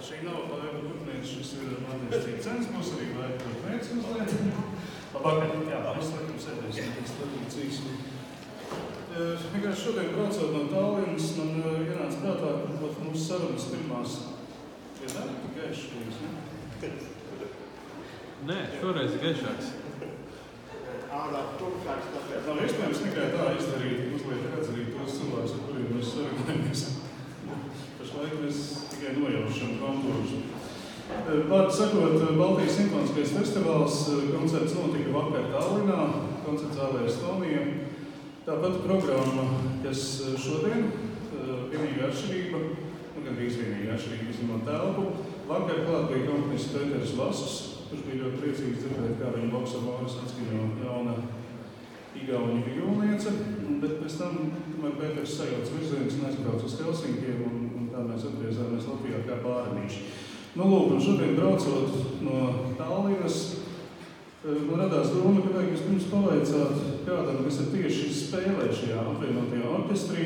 Šī nav laiva putnēs, šis ir Matijas Cīcens, būs arī laiva putnēs uzliet. Labāk, jā, mēs laikam sēdēsim pēc tradīcijas. Vienkārši šodien braucot no Tallinas, man ienāca prātā, ka mūsu sarunas pirmās ir tik gaišas, ne? Nē, šoreiz ir gaišāks. Nav iespējams tikai tā izdarīt, uzliet redz arī tos cilvēkus, ar kuriem mēs sarunājamies. Pašlaik mēs tikai nojaušam kontūrus. Vārdu sakot, Baltijas simfoniskais festivāls koncerts notika vakar Tallinā, koncerts zālē Estonija. Tāpat programma, kas šodien, vienīgā atšķirība, gandrīz vienīgā atšķirība izņemot telpu. Vakar klāt bija komponists Pēters Vasus, kurš bija ļoti priecīgs dzirdēt, kā viņa boksavāras atskaņo jauna igauņu violniece, bet pēc tam, tomēr Pēters sajauc virzienus un aizbrauc uz Helsinkiem, un tā mēs atgriezāmies Latvijā kā bārnīši. Nu, lūk, un šodien braucot no Tallinas, man radās doma, ka vajag vispirms pavaicāt kādam, kas ir tieši spēlē šajā apvienotajā orķestrī.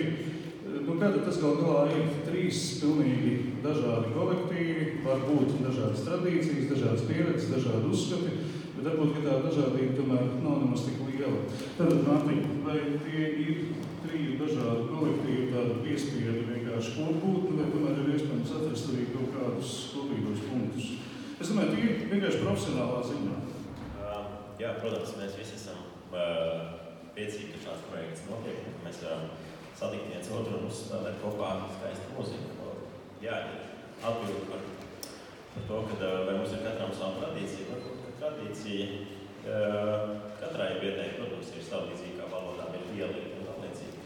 Nu, kāda tas gal galā ir 3 pilnīgi dažādi kolektīvi, var būt dažādas tradīcijas, dažādas pieredzes, dažādi uzskati, bet varbūt, ka tā dažādība tomēr nav nemaz tik liela. Tad, Mārtiņ, vai tie ir 3 dažādi kolektīvi, tāda piespiedu vienkārši kopbūtne, vai tomēr ir iespējams atrast arī kaut kādus kopīgos punktus? Es domāju, tie ir vienkārši profesionālā ziņā. Jā, protams, mēs visi esam priecīgi, ka šāds projekts notiek, ka mēs varam satikt viens otru un uzspēlēt kopā skaistu mūziku. Jā, ir atbildi par to, ka vai mums ir katram savu tradīciju. Varbūt, ka tradīcija katrai vietnei, protams, ir savu līdzīgi, kā valodām ir dialekti un tā līdzīgi.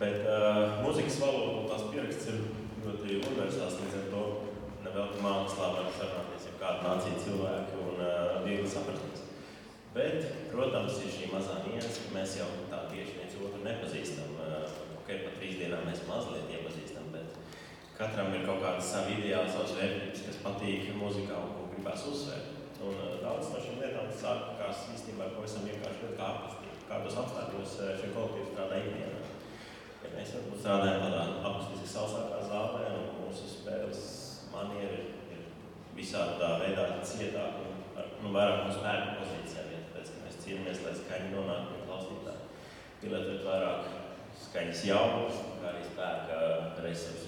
Bet mūzikas valoda un tās pieraksts ir ļoti universāls, līdz ar to nevelti mākslā var sarunāties ar kādu nāciju cilvēku un viegli saprasties. Bet, protams, ir šī mazā nianse, ka mēs jau tā tieši viens otru nepazīstam. Okay, pat 3 dienām mēs mazliet iepazīstam, bet katram ir kaut kāda sava ideāla, savas vērtības, kas patīk mūzikā un ko gribās uzsvērt. Un daudz no šīm lietām sākās īstenībā pavisam vienkārši ļoti ārpustīgi. Kādos apstākļos šie kolektīvi strādā ikdienā. Ja mēs varbūt strādājam tādā akustiski sausākā zālē un mūsu spēles manieri ir visādā veidā cietāk un vairāk mūsu spēku pozīcijām. Tāpēc, ka mēs cīnāmies, lai skaņi nonāk pie klausītāji. Pielietot vairāk skaņas jaunas, kā arī spēka resursu.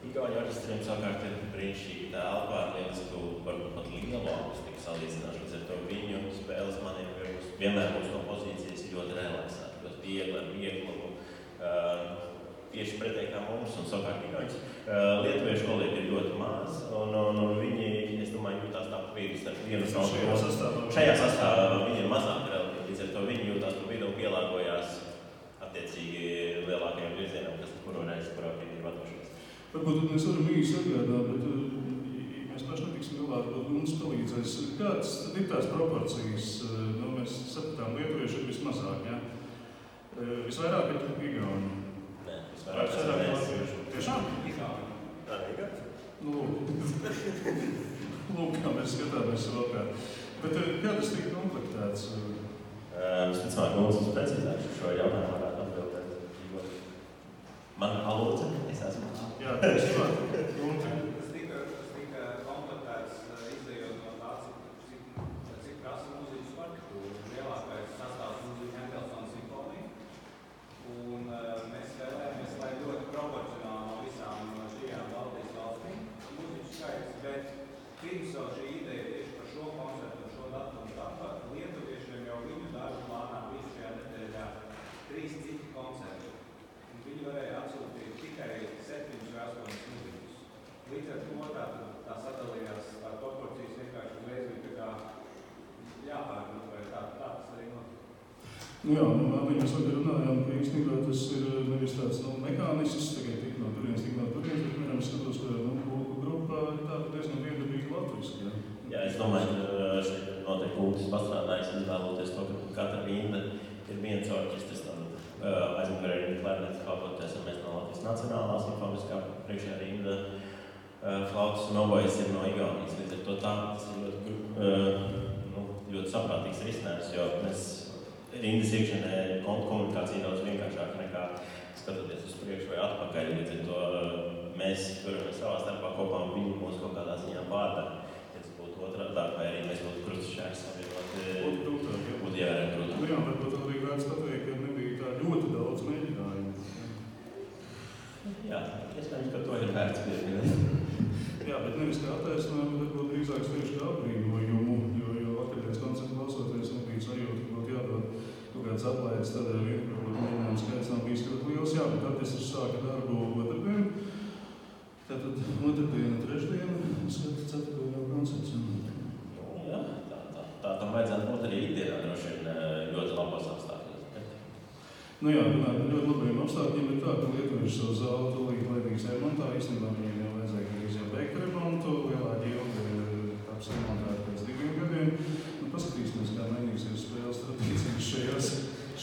Igauņu orķestriem savukārt ir brīnišķīgi telpā ar lielisku, varbūt pat lielu akustiku salīdzināšu. Līdz ar to viņu spēles manieri vienmēr mūsu kompozīcijas ir ļoti relaksēti, ļoti viegli ar vieglumu. Tieši pretēji kā mums un savukārt igauņus. Lietuviešu kolēģi ir ļoti maz, un viņi, es domāju, jūtās tā pa vidu starp vienu savu. Šajā sastāvā viņi ir mazāk relatīvi, līdz ar to viņi jūtās pa vidu un pielāgojās attiecīgi lielākajiem virzienam, kas kuru reizi, kurā viņi ir vadošies. Varbūt mēs varam īsi atgādāt, bet mēs paši netiksim galā, varbūt mums palīdzēs. Kādas ir tās proporcijas? Nu, mēs sapratām, lietuvieši ir vismazāk, jā? Visvairāk ir igauņi. Nē, visvairāk ir latvieši. Tiešām? Igauņi. Tā ir igauņi? Nu, lūk, kā mēs skatāmies vēl kā. Bet kā tas tika komplektēts? Visticamāk, mums precīzāk šo jautājumu varētu atbildēt. Man palūdza, es esmu. Jā, tiešām. Tas tika komplektēts izējot no tā, cik prasa mūzikas partitūra. Lielākais sastāvs mūzika Hendelsona simfonija. Un mēs vēlējāmies, lai ļoti proporcionāli no visām šajām Baltijas valstīm mūzikas skaits, bet pirms jau šī ideja tieši par šo koncertu un šo datumu tāpat lietuviešiem jau viņu darbu plānā bija šajā nedēļā 3 citi koncerti. Viņi varēja atsūtīt tikai 7 vai 8 mūzikus. Līdz ar to tā sadalījās tā proporcijas vienkārši uzreiz bija tā kā jāpārgrūt, vai tā tas arī notika. Nu jā, mēs vakar runājām, ka īstenībā tas ir nevis tāds mekānisks, tikai tik no turienes, bet piemēram skatos, ka pulku grupā ir tāda diezgan viendabīga latviska. Jā, es domāju, ka šeit noteikti Kultis pastrādājis izvēloties to, ka katra rinda ir viens orķestris. Aizmugurē ir klarnets kalpoties, un mēs no Latvijas Nacionālās simfoniskā priekšējā rinda flautas un obojas ir no Igaunijas. Līdz ar to tas ir ļoti saprātīgs risinājums, jo mēs rindas iekšienē komunikācija daudz vienkāršāka nekā skatoties uz priekšu vai atpakaļ. Līdz ar to mēs turamies savā starpā kopā un viņi mūs kaut kādā ziņā vada. Ja tas būtu otrādi, vai arī mēs būtu krustašķērs savienot. Būtu jārekrutē. Nu jā, varbūt arī vērts pateikt, ka nebija tā ļoti daudz mēģinājumu. Jā, iespējams, ka to ir vērts pieminēt. Jā, bet nevis kā attaisnojumu, bet varbūt drīzāk tieši kā apbrīnojumu, jo vakardienas koncertu klausoties nebija sajūta, ka būtu jādod kaut kāds aplaides, tādēļ varbūt mēģinājums skaits nav bijis ļoti liels. Jā, bet orķestris sāka darbu otrdien. Tātad otrdiena, trešdiena, skatu ceturto jau koncerts. Jā, tā tam vajadzētu būt arī ikdienā, droši vien ļoti labos apstākļos. Nu jā, runāt par ļoti labiem apstākļiem ir tā, ka lietuvieši savu zāli tūlīt laidīs remontā. Īstenībā viņiem jau vajadzēja gandrīz jau beigt remontu. Lielā ģilde taps remontēta pēc 2 gadiem. Nu, paskatīsimies, kā mainīsies spēles tradīcijas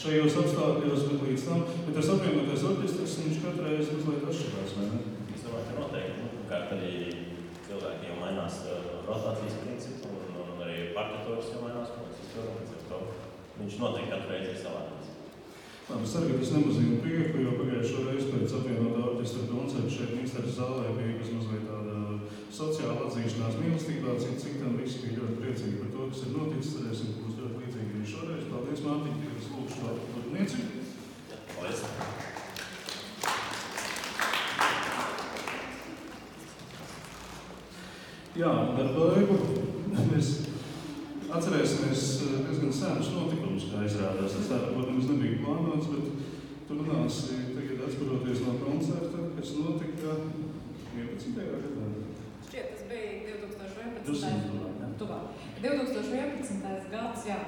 šajos apstākļos, bet līdz tam. Bet tas apvienotais orķestris, viņš katru reizi mazliet atšķirās, vai ne? Es domāju, ka noteikti. Kārt arī cilvēki jau mainās rotācijas principu un arī partitūras jau mainās. Viņš noteikti katru reizi ir savādāks. Labi, es ceru, ka tas nemazina prieku, jo pagājušo reizi pēc apvienotā orķestra koncerta šeit Mīnsteres zālē bija mazliet tāda sociāla atzīšanās mīlestībā, citam visi bija ļoti priecīgi par to, kas ir noticis. Cerēsim, ka būs ļoti līdzīgi arī šoreiz. Paldies, Mārtiņ, ka es lūkšu šo turpnieci. Paldies! Jā, ar baigu mēs atcerēsimies diezgan senus notikumus, kā izrādās. Tas tā, protams, nebija plānots, bet tu runāsi tagad atskaroties no koncerta, kas notika 11. gadā. Šķiet, tas bija 2011. gads, jā.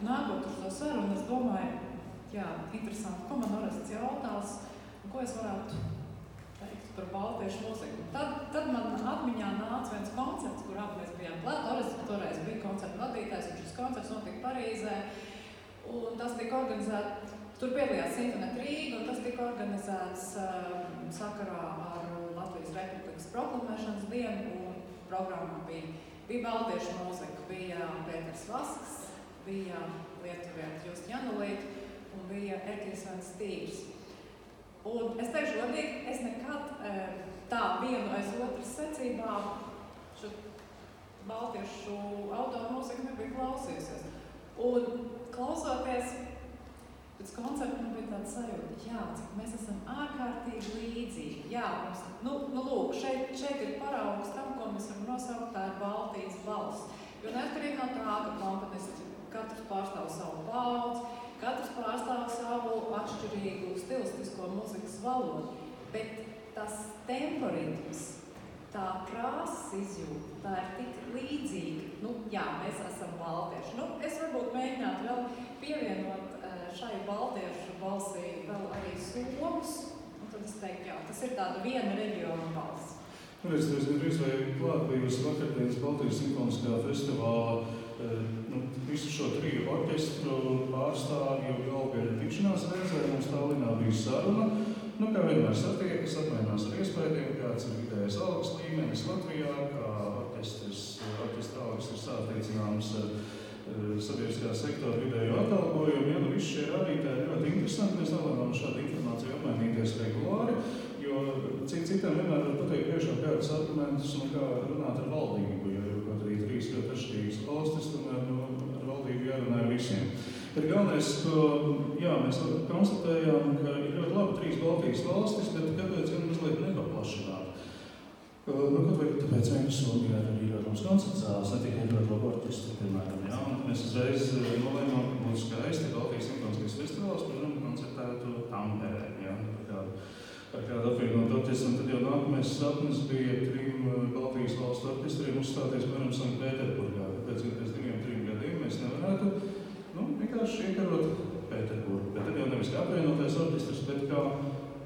Nākot uz to sarunu, es domāju, jā, interesanti, ko man Orests jautās, un ko es varētu teikt par baltiešu mūziku. Tad man atmiņā nāca viens koncerts, kur abi mēs bijām klāt. Orests toreiz bija koncerta vadītājs, un šis koncerts notika Parīzē, un tas tika organizēts, tur piedalījās Sinfonēta Rīga, un tas tika organizēts sakarā ar Latvijas Republikas proklamēšanas dienu, un programmā bija baltiešu mūzika, bija Pēters Vasks, bija lietuvieta Justa Janulīte un bija Erkijs Vens Stīvs. Un es teikšu godīgi, es nekad tā vienu aiz otras secībā šo baltiešu autoru mūziku nebija klausījusies. Un klausoties pēc koncerta man bija tāda sajūta, jā, cik mēs esam ārkārtīgi līdzīgi. Jā, mums, lūk, šeit ir paraugs tam, ko mēs varam nosaukt, tā ir Baltijas balss. Jo neatkarīgi no tā, ka komponisti katrs pārstāv savu paudzi, katrs pārstāv savu atšķirīgu stilistisko mūzikas valodu, bet tas temporitms, tā krāsas izjūta, tā ir tik līdzīga. Jā, mēs esam baltieši. Es varbūt mēģinātu vēl pievienot šai baltiešu balsī vēl arī somus, un tad es teiktu, jā, tas ir tāda viena reģiona balss. Es gandrīz vai klāt bijusi vakardienas Baltijas simfoniskā festivāla visu šo triju orķestru pārstāvju galvgaļu tikšanās reizē. Mums Tallinā bija saruna. Kā vienmēr satiekas, apmainās ar iespējiem, kāds ir vidējais algas līmenis Latvijā, kā orķestra algas ir sāteicināmas ar sabiedriskā sektora vidējo atalgojumu. Visi šie rādītāji ir ļoti interesanti. Mēs nevaram šādu informāciju apmainīties regulāri, jo citam vienmēr var pateikt priekšā kādus argumentus un kā runāt ar valdību, jo kaut arī 3 ļoti atšķirīgas valstis, tomēr ar valdību jārunā ar visiem. Bet galvenais, ko mēs konstatējām, ka ir ļoti labi 3 Baltijas valstis, bet kāpēc gan mazliet nepaplašināt? Kaut vai tāpēc vien, ka Somijā ir arī ļoti mums koncerts zāles, ne tikai ļoti labi orķestri, piemēram. Un mēs uzreiz nolēmām, ka būtu skaisti Baltijas simfoniskais festivāls, kuram koncertētu Tamperē, par kādu apvienot orķestru. Tad jau nākamais sapnis bija 3 Baltijas valstu orķestriem uzstāties, piemēram, Sanktpēterburgā. Tāpēc, ka pēc 2-3 gadiem mēs nevarētu vienkārši iekarot Pēterburgu. Bet tad jau nevis kā apvienotais orķestrs, bet kā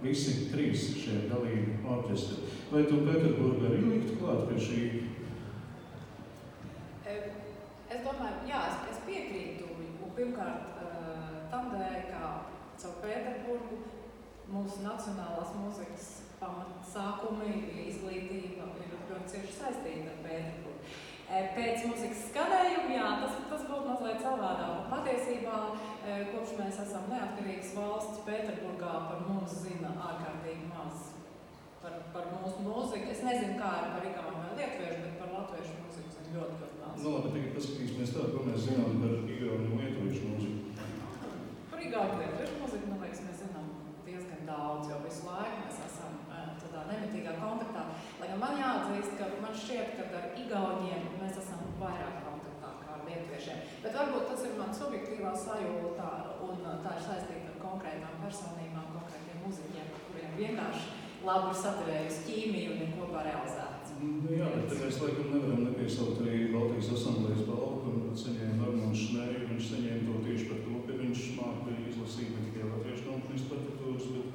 visi 3 šie dalību orķestri. Vai tu Pēterburgu arī liktu klāt pie šī? Es domāju, jā, es piekrītu. Pirmkārt, tam dēļ, kā caur Pēterburgu mūsu nacionālās mūzikas pamatsākumi, izglītība ir ļoti cieši saistīta ar Pēterburgu. Pēc mūzikas skanējuma, jā, tas būtu mazliet savādāk. Patiesībā, kopš mēs esam neatkarīgas valsts, Pēterburgā par mums zina ārkārtīgi maz. par mūsu mūziku. Es nezinu, kā ir par igauņu vai lietuviešu, bet par latviešu mūziku zinu ļoti daudz. Nu, labi, tagad paskatīsimies tā, ko mēs zinām par igauņu un lietuviešu mūziku. Par igauņu lietuviešu mūziku, man liekas, mēs zinām diezgan daudz, jo visu laiku mēs esam tādā nemitīgā kontaktā. Lai gan man jāatzīst, ka man šķiet, ka ar igauņiem mēs esam vairāk kontaktā kā ar lietuviešiem. Bet varbūt tas ir man subjektīvā sajūta un tā ir saistīta ar konkrētām personībām, konkrētiem muziķiem, kuriem vienkārši labi ir saturējusi ķīmiju un ir kopā realizēts. Jā, bet te mēs laikam nevaram nepiesaukt arī Baltijas asamblējas balvu, kur saņēma Armāns Šnēju. Viņš saņēma to tieši par to, ka viņš māca izlasīt ne tikai latviešu komponistu partitūras, bet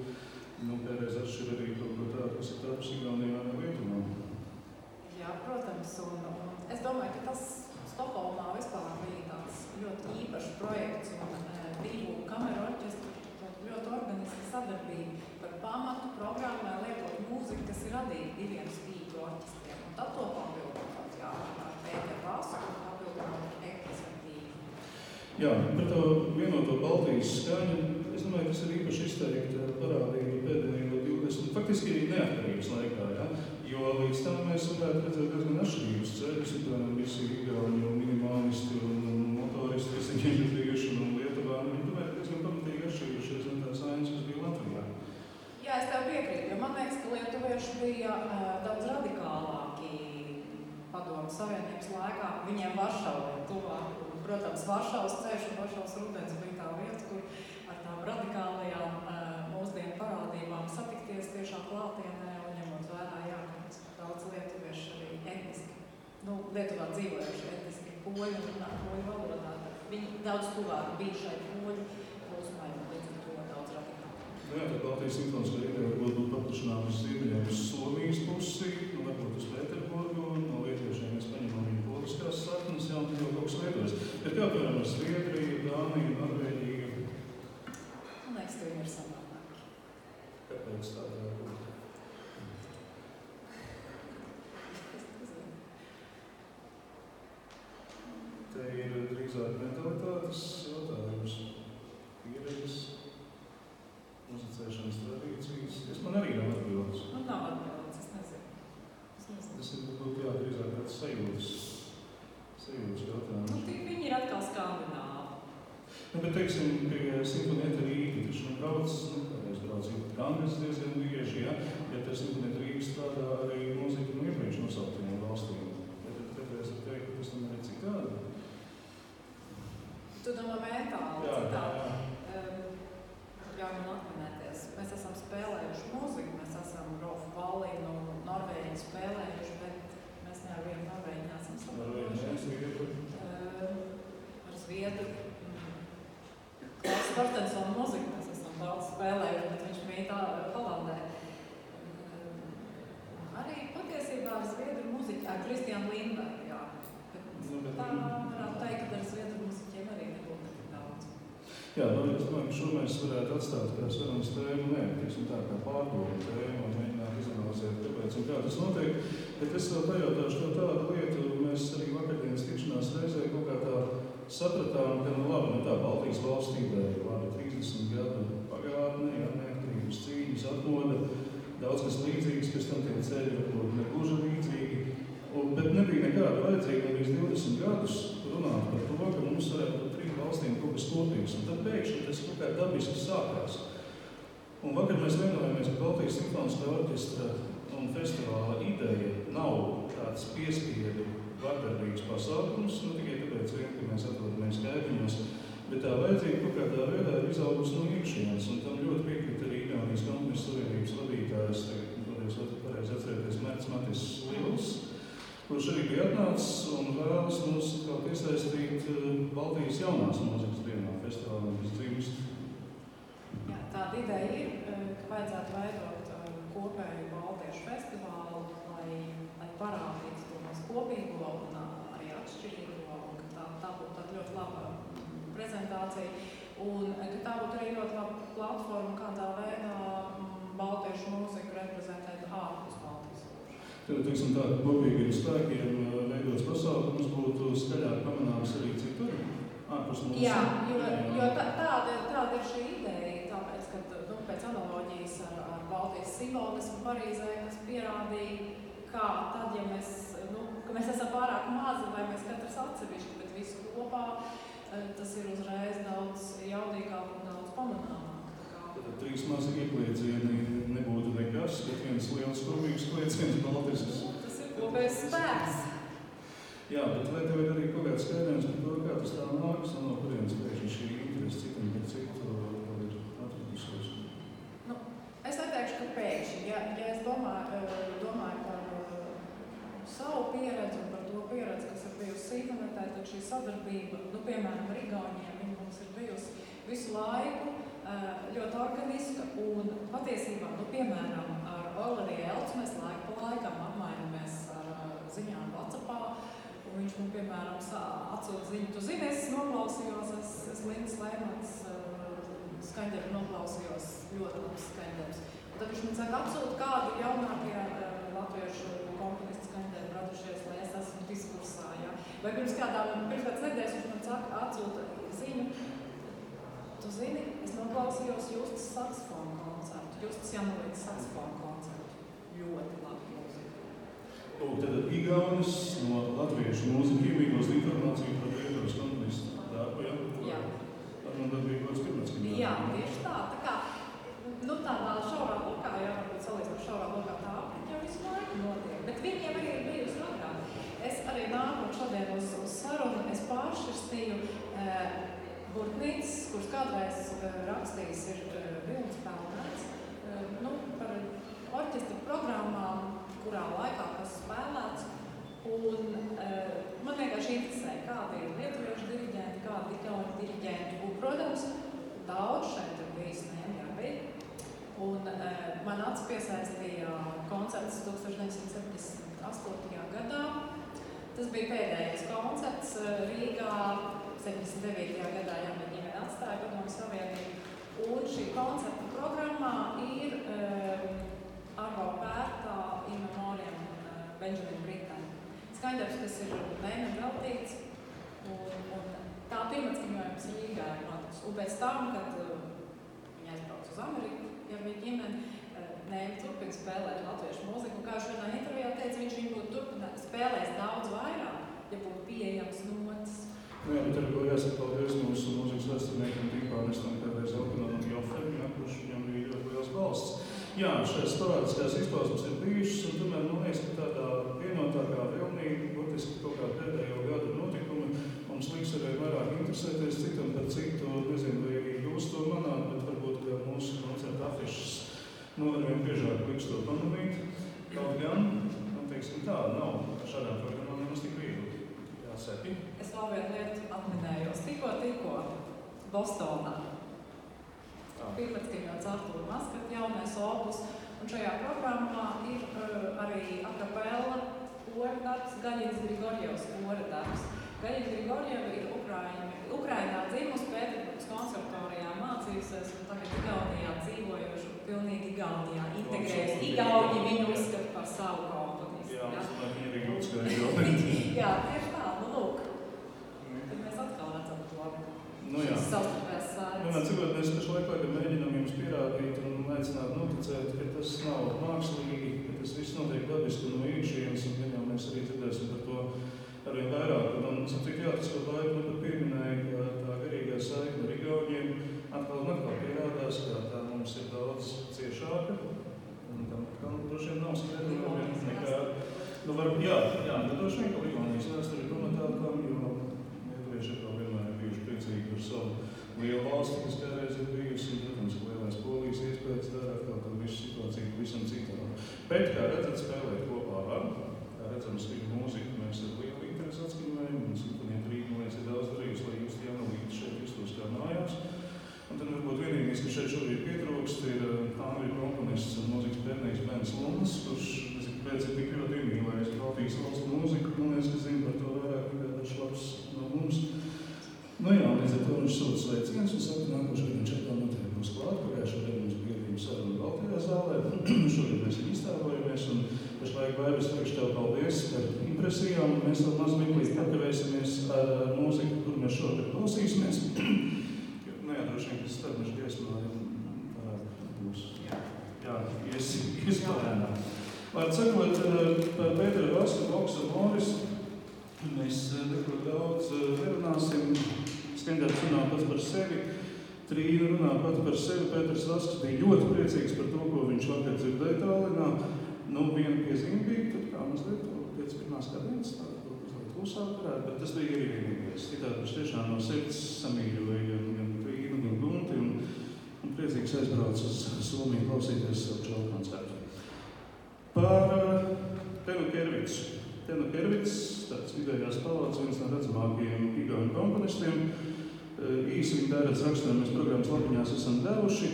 kādreiz atšķir arī kaut ko tādu, kas ir tāpus Igaunijā vai Lietuvā. Jā, protams, un es domāju, ka tas Stokholmā vispār bija tāds ļoti īpašs projekts un divu kameru orķestru ļoti organiska sadarbība par pamatu programmai lietot mūziku, kas ir radīta diviem spīķu orķestriem. Un tad to papildināt, jā, ar Pēteru Vasu un papildināt ekvizitīvi. Jā, par to vienoto Baltijas skaņu, es domāju, tas ir īpaši izteikti parādība pēdējo 20, faktiski neatkarības laikā, ja? Jo līdz tam mēs varētu redzēt diezgan atšķirības ceļus, un visi igauņu minimālisti un motoristi, visi ģenerījuši un Lietuvā, viņi tomēr diezgan pamatīgi atšķirījušies no tās ainas, kas bija Latvijā. Jā, es tev piekrītu, jo man liekas, ka lietuvieši bija daudz radikālāki Padomu Savienības laikā. Viņiem Varšava ir tuvāk. Protams, Varšavas ceļš un Varšavas rudens bija tā vieta, kur ar tām radikālajām mūsdienu parādībām satikties tiešā klātienē un ņemot vērā, jā, ka daudz lietuvieši arī etniski, Lietuvā dzīvojuši etniski poļi un runā poļu valodā. Viņi daudz tuvāk bija šai poļu plūsmai un līdz ar to daudz radikāli. Jā, tad Baltijas simfoniskā ideja varbūt būtu paplašināta uz ziemeļiem uz Somijas pusi, varbūt uz Pēterburgu, no lietuviešiem mēs paņemam viņu poliskās saknes, jā, un tad jau kaut kas lietojas. Bet kā piemēram ar Zviedriju, Dāniju, Norvēģiju? Man liekas, ka viņi ir samādāki. Kāpēc tā būt? Te ir drīzāk mentalitātes jautājums, pieredzes, muzicēšanas tradīcijas. Man arī nav atbildes. Man nav atbildes, es nezinu. Tas ir drīzāk tāds sajūtas jautājums. Viņi ir atkal skandināvi. Bet, teiksim, pie Simfonieta Rīga, taču brauc Angļas diezgan bieži, ja te Simfonieta Rīga strādā arī mūzika no iepriekš nosauktiem valstīm. Tad es teiktu, ka tas tomēr ir citādi. Tu domā mentāli, Jā. Ļauj man atminēties. Mēs esam spēlējuši mūziku, mēs esam Rolfu Vallinu, Norvēģi spēlējuši, bet mēs ne ar vienu Norvēģi neesam saprotuši. Ar Zviedru. Klaus Torstensona mūziku mēs esam daudz spēlējuši, bet viņš mīt Holandē. Arī patiesībā ar Zviedru mūziķi, ar Kristiānu Lindbergu, jā. Bet tā varētu teikt, ka ar Zviedru mūziķiem arī nebūtu tik daudz. Jā, es domāju, ka šo mēs varētu atstāt kā sarunas tēmu, tā kā pārdomu tēmu un mēģināt izanalizēt, kāpēc un kā tas notiek. Bet es vēl pajautāšu to tādu lietu, mēs arī vakardienas tikšanās reizē kaut kā tā sapratām, ka tā Baltijas valstība ir 30 gadu pagātne, neatkarības cīņas atmoda, daudz kas līdzīgs, kas tam tie ceļi varbūt negluži līdzīgi. Bet nebija nekāda vajadzīga līdz 20 gadus runāt par to, ka mums varētu būt 3 valstīm kaut kas kopīgs. Un tad pēkšņi tas kaut kā dabiski sākās. Un vakar mēs vienojāmies, ka Baltijas simfoniskā orķestra un festivāla ideja nav tāds piespiedu vardarbīgs pasākums, tikai tāpēc vien, ka mēs atrodamies kaimiņos, bet tā vajadzība kaut kādā veidā ir izaugusi no iekšienes, un tam ļoti piekrīt arī Igaunijas komponistu savienības vadītājs, pareizi atcerēties Mērts Matis Liels, kurš arī bija atnācis un vēlas mums kā piesaistīt Baltijas jaunās mūzikas dienā festivālā uz dzimst. Jā, tāda ideja ir, ka vajadzētu veidot kopēju baltiešu festivālu, lai parādītu to mūsu kopīgo un arī atšķirīgo, un ka tā būtu tāda ļoti laba prezentācija, un ka tā būtu arī ļoti laba platforma, kādā veidā baltiešu mūziku reprezentēt ārpus Baltijas jūras. Tad, teiksim tā, ka kopīgiem spēkiem veidots pasākums būtu skaļāk pamanāms arī citur, ārpus mūsu. Jā, jo tāda ir šī ideja, tāpēc, ka pēc analoģijas ar Baltijas simfoniju simbolismu Parīzē, kas pierādīja, kā tad, ja mēs, ka mēs esam pārāk mazi vai mēs katrs atsevišķi, bet visu kopā, tas ir uzreiz daudz jaudīgāk un daudz pamanāmāk. Tad 3 mazi iekliecieni nebūtu nekas, bet viens liels kopīgs klieciens Baltisks. Tas ir kopējs spēks. Jā, bet vai tev ir arī kaut kāds skaidrojums par to, kā tas tā nākas, no kurienes pēkšņi šī interese citam par citu ir atradusies? Es neteikšu, ka pēkšņi. Ja es domāju par savu pieredzi un par to pieredzi, kas ir bijusi internetā, tad šī sadarbība, piemēram, ar Igauniem, viņa mums ir bijusi visu laiku ļoti organiska un patiesībā, piemēram, ar Valeriju Elcu mēs laiku pa laikam apmainamies ar ziņām WhatsAppā. Un viņš man, piemēram, atsūta ziņu. Tu zini, es noklausījos, es Lindas Lēmans skaņdarbu noklausījos, ļoti labs skaņdarbs. Un tad viņš man saka, atsūta kādu jaunākie latviešu komponistu skaņdarbu radušies, lai es esmu diskursā. Ja? Vai pirms kādas nedēļas viņš man saka, atsūta ziņu. Tu zini, es noklausījos Justas saksofonu koncertu, Justas Janulītas saksofonu koncertu. Ļoti labi mūzika. Tad Igaunis no latviešu mūziku iemīgos informāciju par Lietuvas komponistu darbu, ja? Jā. Ar man darbību kāds pirmatskaņā. Jā, tieši tā. Tā kā, tādā šaurā lokā, jā, varbūt salīdzināt šaurā lokā tā apriņa jau visu laiku notiek. Bet viņiem arī ir bijusi agrāk. Es arī nākot šodien uz sarunu, es pāršķirstīju Burtnītis, kurš kādreiz rakstījis ir Vilnis Pelnēts, par orķestra programmām, kurā laikā kas spēlēts. Un man vienkārši interesē, kādi ir lietuviešu diriģenti, kādi igauņu diriģenti. Un, protams, daudz šeit ir bijis nevienmērīgi. Un man acis piesaistīja koncerts 1978. gadā. Tas bija pēdējais koncerts Rīgā. 79. gadā jauna ģimene atstāja Padomju Savienību. Un šī koncerta programmā ir Arvo Pērtā in memoriam Benjamin Britten. Skaņdarbs, kas ir mēnešiem veltīts, un tā pirmatskaņojums Rīgā ir notiks. Un pēc tam, kad viņi aizbrauc uz Ameriku, ja viņa ģimene, Nēmi turpina spēlēt latviešu mūziku. Un kā viņš vienā intervijā teica, viņš viņu būtu spēlējis daudz vairāk, ja būtu pieejams notis. Jā, bet ar ko jāsaka paldies mūsu mūzikas vēsturniekam Tīpānestam, kādreiz Elkanam Jofem, kurš viņam bija ļoti liels balsts. Jā, šeit sporādiskās izpausmes ir bijušas, un tomēr man liekas, ka tādā vienotākā vilnī, būtiski kaut kā pēdējo gadu notikumi, mums liks arī vairāk interesēties citam par citu, nezinu, vai arī jūs to manāt, bet varbūt, ka mūsu koncerta afišas arvien biežāk liks to pamanīt. Kaut gan, man teiksim tā, nav šādām programmām nemaz tik viegli. Jāsaki. Es vēl vienu lietu atminējos. Tikko Bostonā. Pirmatskaņots Artūra Maskata jaunais opus. Un šajā programmā ir arī a cappella kora darbs, Gaļins Grigorjevs kora darbs. Gaļina Grigorjeva ir Ukrainā dzimusi, Pēterburgas konservatorijā mācījusies un tagad Igaunijā dzīvojoši, pilnīgi Igaunijā integrējas. Igauni viņu uzskata par savu komponistu. Jā, es domāju, viņi arī uzskata Igauni. Jā, tieši tā, lūk. Tad mēs atkal redzam to. Jā. Savstarpējās saites. Cikot mēs pašlaik mēģinām jums pierādīt un aicināt noticēt, ka tas nav mākslīgi, ka tas viss notiek dabiski no iekšienes, un viņam mēs arī dzirdēsim par to arvien vairāk. Un cik jā, tas kaut laiku pat pieminēja, ka tā garīgā saikne ar Igauniem atkal un atkal pierādās, ka tā mums ir daudz ciešāka. Un tam droši vien nav skaidrojumi nekā. Droši vien, ka Igaunijas vēsture ir pamatākam, jo lietuvieši atkal vienmēr ir bijuši priecīgi par savu lielu valsti, kas kādreiz ir bijusi, un, protams, lielais Polijas iespējas dara atkal tādu visu situāciju pavisam citādi. Bet, kā redzat, spēlēt kopā var. Kā redzam, skaņu mūziku mēs ar lielu interesi atskaņojam, un Simfonieta Rīga, man liekas, ir daudz darījusi, lai jūs Janulīti šeit justos kā mājās. Un tad varbūt vienīgais, ka šeit šobrīd pietrūkst, ir angļu komponists un mūzikas pētnieks Bens Lunds, kurš pēc ir tik ļoti iemīlējis Baltijas valstu mūziku, man liekas, ka zina par to vairāk nekā dažs labs no mums. Līdz ar to viņš sūta sveiciens un saka, nākošais viņš atkal noteikti būs klāt. Pagājušajā gadā mums bija arī saruna Baltijā zālē. Šogad mēs iztēlojamies un pašlaik Vairis teikšu tev paldies par impresijām. Mēs vēl maz mirklīt pakavēsimies ar mūziku, kur mēs šogad klausīsimies. Droši vien, ka starpmešu dziesmā būs. Jā, izklājumā. Var sakot, par Pēteru Vasku, Boksu, Morisu mēs neko daudz nerunāsim. Skandēts runā pats par sevi, Trīna runā pats par sevi. Pēters Vasks bija ļoti priecīgs par to, ko viņš vakar dzirdēja Tallinā. Viena piezīme bija, tad kā mazliet pēc pirmās kadienas, tāda mazliet klusāk varētu, bet tas bija arī vienīgais. Citādi viņš tiešām no sirds samīļoja gan Trīnu, gan Gunti un priecīgs aizbrauc uz Somiju klausīties savu čalu koncertu. Par Tenu Kervicu. Tenu Kervits, tāds vidējās palādes, viens no redzamākajiem igauņu komponistiem. Īsi viņa tērētas rakstiem mēs programmas lapiņās esam devuši,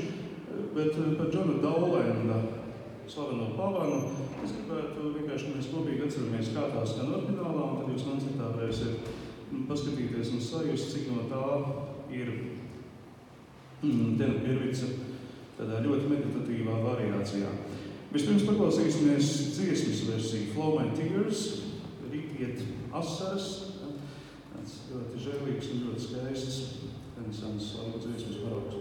bet par Džonu Daulenda, slaveno pavanu, es gribētu vienkārši, ka mēs kopīgi atceramies, kā tā skan oriģinālā, un tad jūs koncertā varēsiet paskatīties un sajust, cik no tā ir Tenu Kervica tādā ļoti meditatīvā variācijā. Vispirms paklausīsimies dziesmas versiju Flow My Tears, Rītiet asaras, tāds ļoti žēlīgs un ļoti skaists renesans slavu dziesmas paraugs.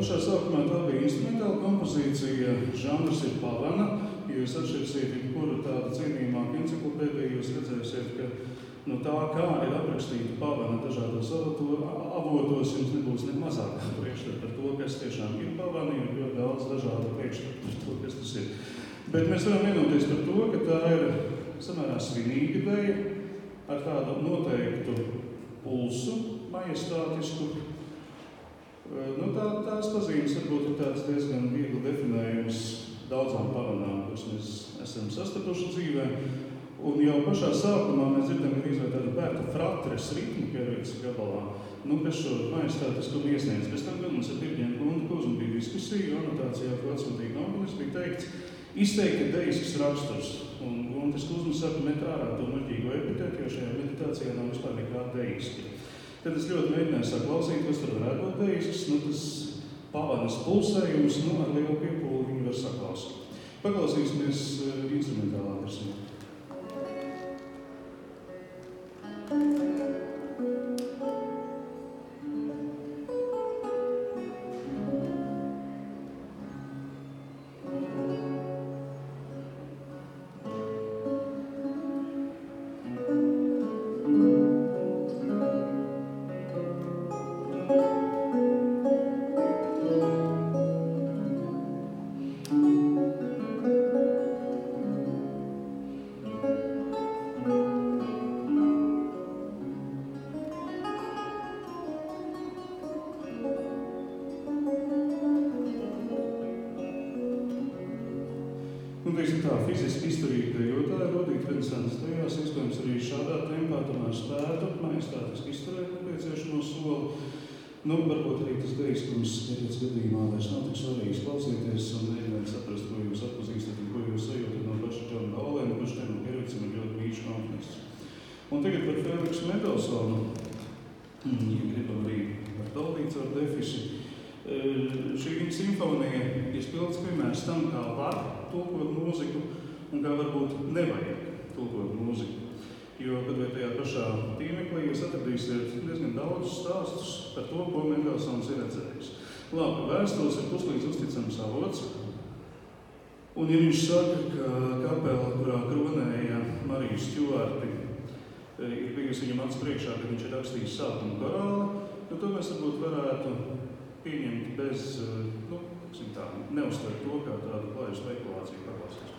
Pašā sākumā tā bija instrumentāla kompozīcija, žanrs ir pavana. Ja jūs atšķirsiet jebkuru tādu cienījumāku enciklopēdiju, jūs redzēsiet, ka no tā, kā ir aprakstīta pavana dažādos avotos, jums nebūs ne mazākā priekšstata par to, kas tiešām ir pavana, jo ļoti daudz dažādu priekšstatu par to, kas tas ir. Bet mēs varam vienoties par to, ka tā ir samērā svinīga deja ar tādu noteiktu pulsu, majestātisku. Tās pazīmes varbūt ir tāds diezgan viegli definējums daudzām pavanām, kuras mēs esam sastapuši dzīvē. Un jau pašā sākumā mēs dzirdam arī tādu bērta fratres ritmu Kervicas gabalā, kas šo majestātiskumu iesniedz. Pēc tam gan mums ar Tirģēnu Guntu Kuzmu bija diskusija, anotācijā, ko atsūtīja komponists, bija teikts izteikti deisks raksturs. Un Guntis Kuzmas saka, met ārā to muļķīgo epitētu, jo šajā meditācijā nav vispār nekā deiski. Tad es ļoti mēģināju saklausīt, kas tur varētu būt deisks, tas pavanas pulsējums, ar lielu piepūli viņu var saklausīt. Paklausīsimies instrumentālā versijā. Fiziski izturīgi dejotāji, rodīt renesanses dejās, iespējams arī šādā tempā tomēr spētu, majestātiski izturēt nepieciešamo soli. Varbūt arī tas deiskums Kervicas gadījumā vairs nav tik svarīgs klausīties un mēģināt saprast, ko jūs atpazīstat un ko jūs sajūtat no paša Džona Daulenda, kurš Tenu Kervicam ir ļoti mīļš komponists. Un tagad par Feliksu Mendelsonu, ja gribam arī par Taldīcu ar defiši. Šī viņa simfonija ir spilgts piemērs tam, kā var tulkot mūziku un kā varbūt nevajag tulkot mūziku. Jo, kad vai tajā pašā tīmeklī jūs atradīsiet diezgan daudz stāstus par to, ko Mendelsons ir redzējis. Labi, vēstules ir puslīdz uzticams avots, un ja viņš saka, ka kapela, kurā kronēja Mariju Stjuarti, ir bijusi viņam acs priekšā, kad viņš ir rakstījis sākumu korāli, to mēs varbūt varētu pieņemt bez, neuztvert to kā tādu klaju spekulāciju paklausīšanos.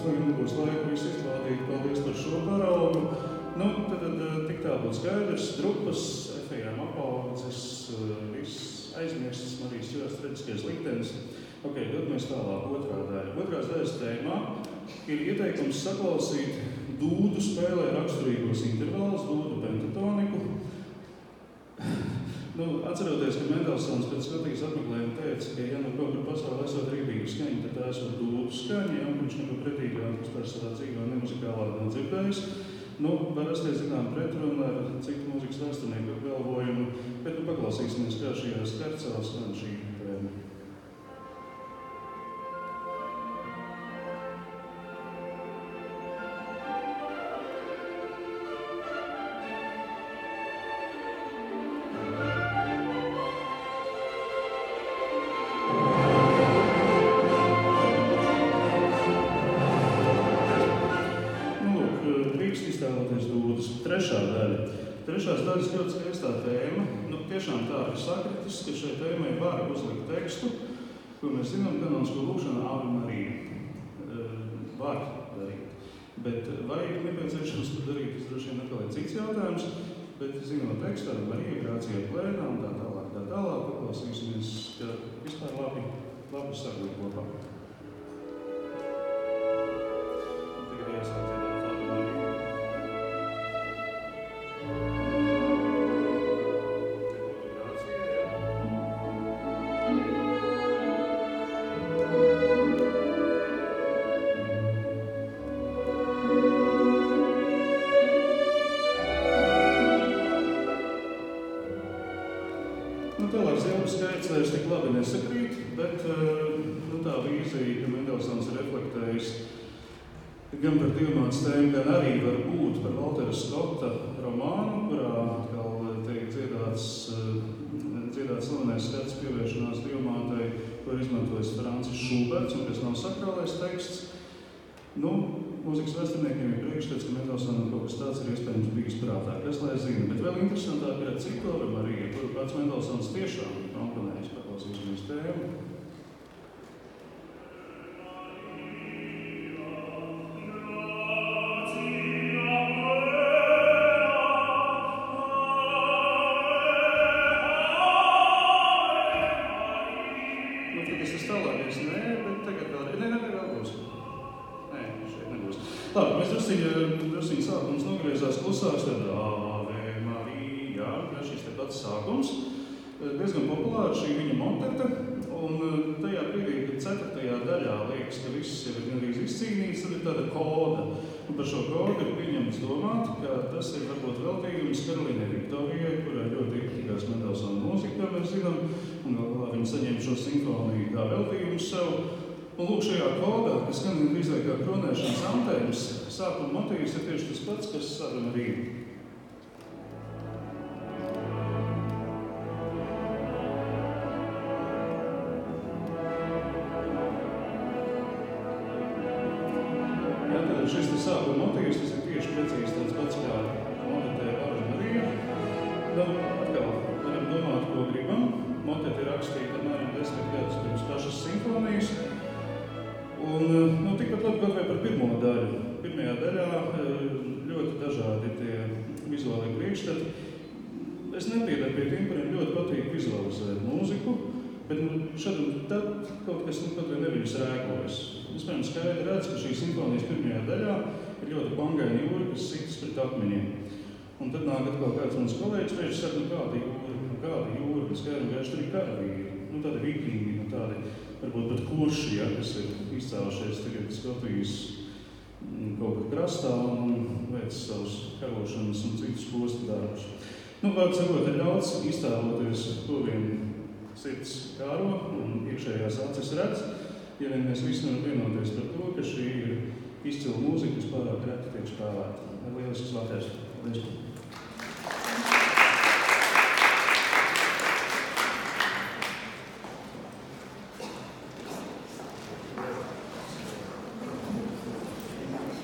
mums tagad nebūs laika visu izklādīt. Paldies par šo paraugu. Nu, tad tik tā būtu skaidrs. Drupas, efejām apaudzes, viss aizmirstas, Marijas Čivas traģiskais liktenis. Ok, dodamies tālāk, otrā daļa. Otrās daļas tēmā ir ieteikums saklausīt dūdu spēlē raksturīgos intervālus, dūdu pentatoniku. Atceroties, ka Mendelsons pēc Skotijas apmeklējuma teica, ka ja nu kaut kur pasaulē esot rīdīga skaņa, tad tā esot dūdu skaņa, ja viņš neko pretīgāk vispār savā dzīvē nemuzikālāk nav dzirdējis. Var rasties zinām pretruna ar citu mūzikas vēsturnieku apgalvojumu, bet paklausīsimies, kā šajā skarcā skan šī tēma. Trešās daļas ļoti skaistā tēma. Tiešām tā ir sakritis, ka šai tēmai var uzlikt tekstu, ko mēs zinām, kanonisko lūgšanu Ave Marija. Var darīt. Bet vai ir nepieciešams to darīt, tas droši vien atkal ir cits jautājums, bet zinot tekstu ar Mariju, grācija plēnā un tā tālāk, paklausīsimies, ka vispār labi saglīt kopā. Tagad jāsāk dziedāt Ave Marija. Skaits vairs tik labi nesakrīt, bet tā vīzija, ka Mendelsons ir reflektējis gan par divmātes tēmu, gan arī var būt par Valtera Skota romānu, kurā atkal tiek dziedāts slavenais skats pievēršanās divmātei, ko ir izmantojis Francis Šuberts, un kas nav sakrālais teksts. Mūzikas vēsturniekiem ir priekšstats, ka Mendelsonam kaut kas tāds ir iespējams bijis prātā, kas lai zina. Bet vēl interesantāk ir citu Ave Marija, kuru pats Mendelsons tiešām komponējis. Paklausīsimies tēmu. Tas ir tālākais, bet tagad vēl būs. Labi, mēs drusciņi sākums nogriezās klusāks, tad Ave Marija, šis te pats sākums. Diezgan populāra šī viņa motete, un tajā brīdī, kad 4. daļā liekas, ka viss jau ir gandrīz izcīnīts, tad ir tāda koda. Un par šo kodu ir pieņemts domāt, ka tas ir varbūt veltījums Karolīnai Viktorijai, kurā ļoti iepatikās Mendelsona mūzika, kā mēs zinām, un galvā viņa saņēma šo simfoniju kā veltījumu sev. Un lūk, šajā kodā, kas skan drīzāk kā kronēšanas antēmas, sākuma motīvs ir tieši tas pats, kas Ave Marija. Tad šis sākuma motīvs, tas ir tieši precīzi tāds pats kā motetē Ave Marija. Atkal varam domāt, ko gribam. Motete ir rakstīta apmēram 10 gadus pirms pašas simfonijas. Un tikpat labi kaut vai par pirmo daļu. Pirmajā daļā ļoti dažādi tie vizuālie priekšstati. Es nepiedaru pie tiem, kuriem ļoti patīk vizualizēt mūziku, bet šad un tad kaut kas kaut vai neviļas rēkojas. Es piemēram skaidri redzu, ka šī simfonijas pirmajā daļā ir ļoti bangaina jūra, kas sitas pret akmeņiem. Un tad nāk atkal kāds mans kolēģis, viņš saka, kāda jūra, bet skaidri un gaiši tur ir karavīri. Tādi vikingi, tādi varbūt pat kurši, kas ir izcēlušies tagad Skotijas kaut kā krastā un veic savus karošanas un citus postu darbus. Vārds sakot, ir ļauts iztēloties, ko vien sirds kāro un iekšējās acis redz, ja vien mēs visi varam vienoties par to, ka šī ir izcila mūzika, kas pārāk reti tiek spēlēta. Lielisks vakars. Paldies!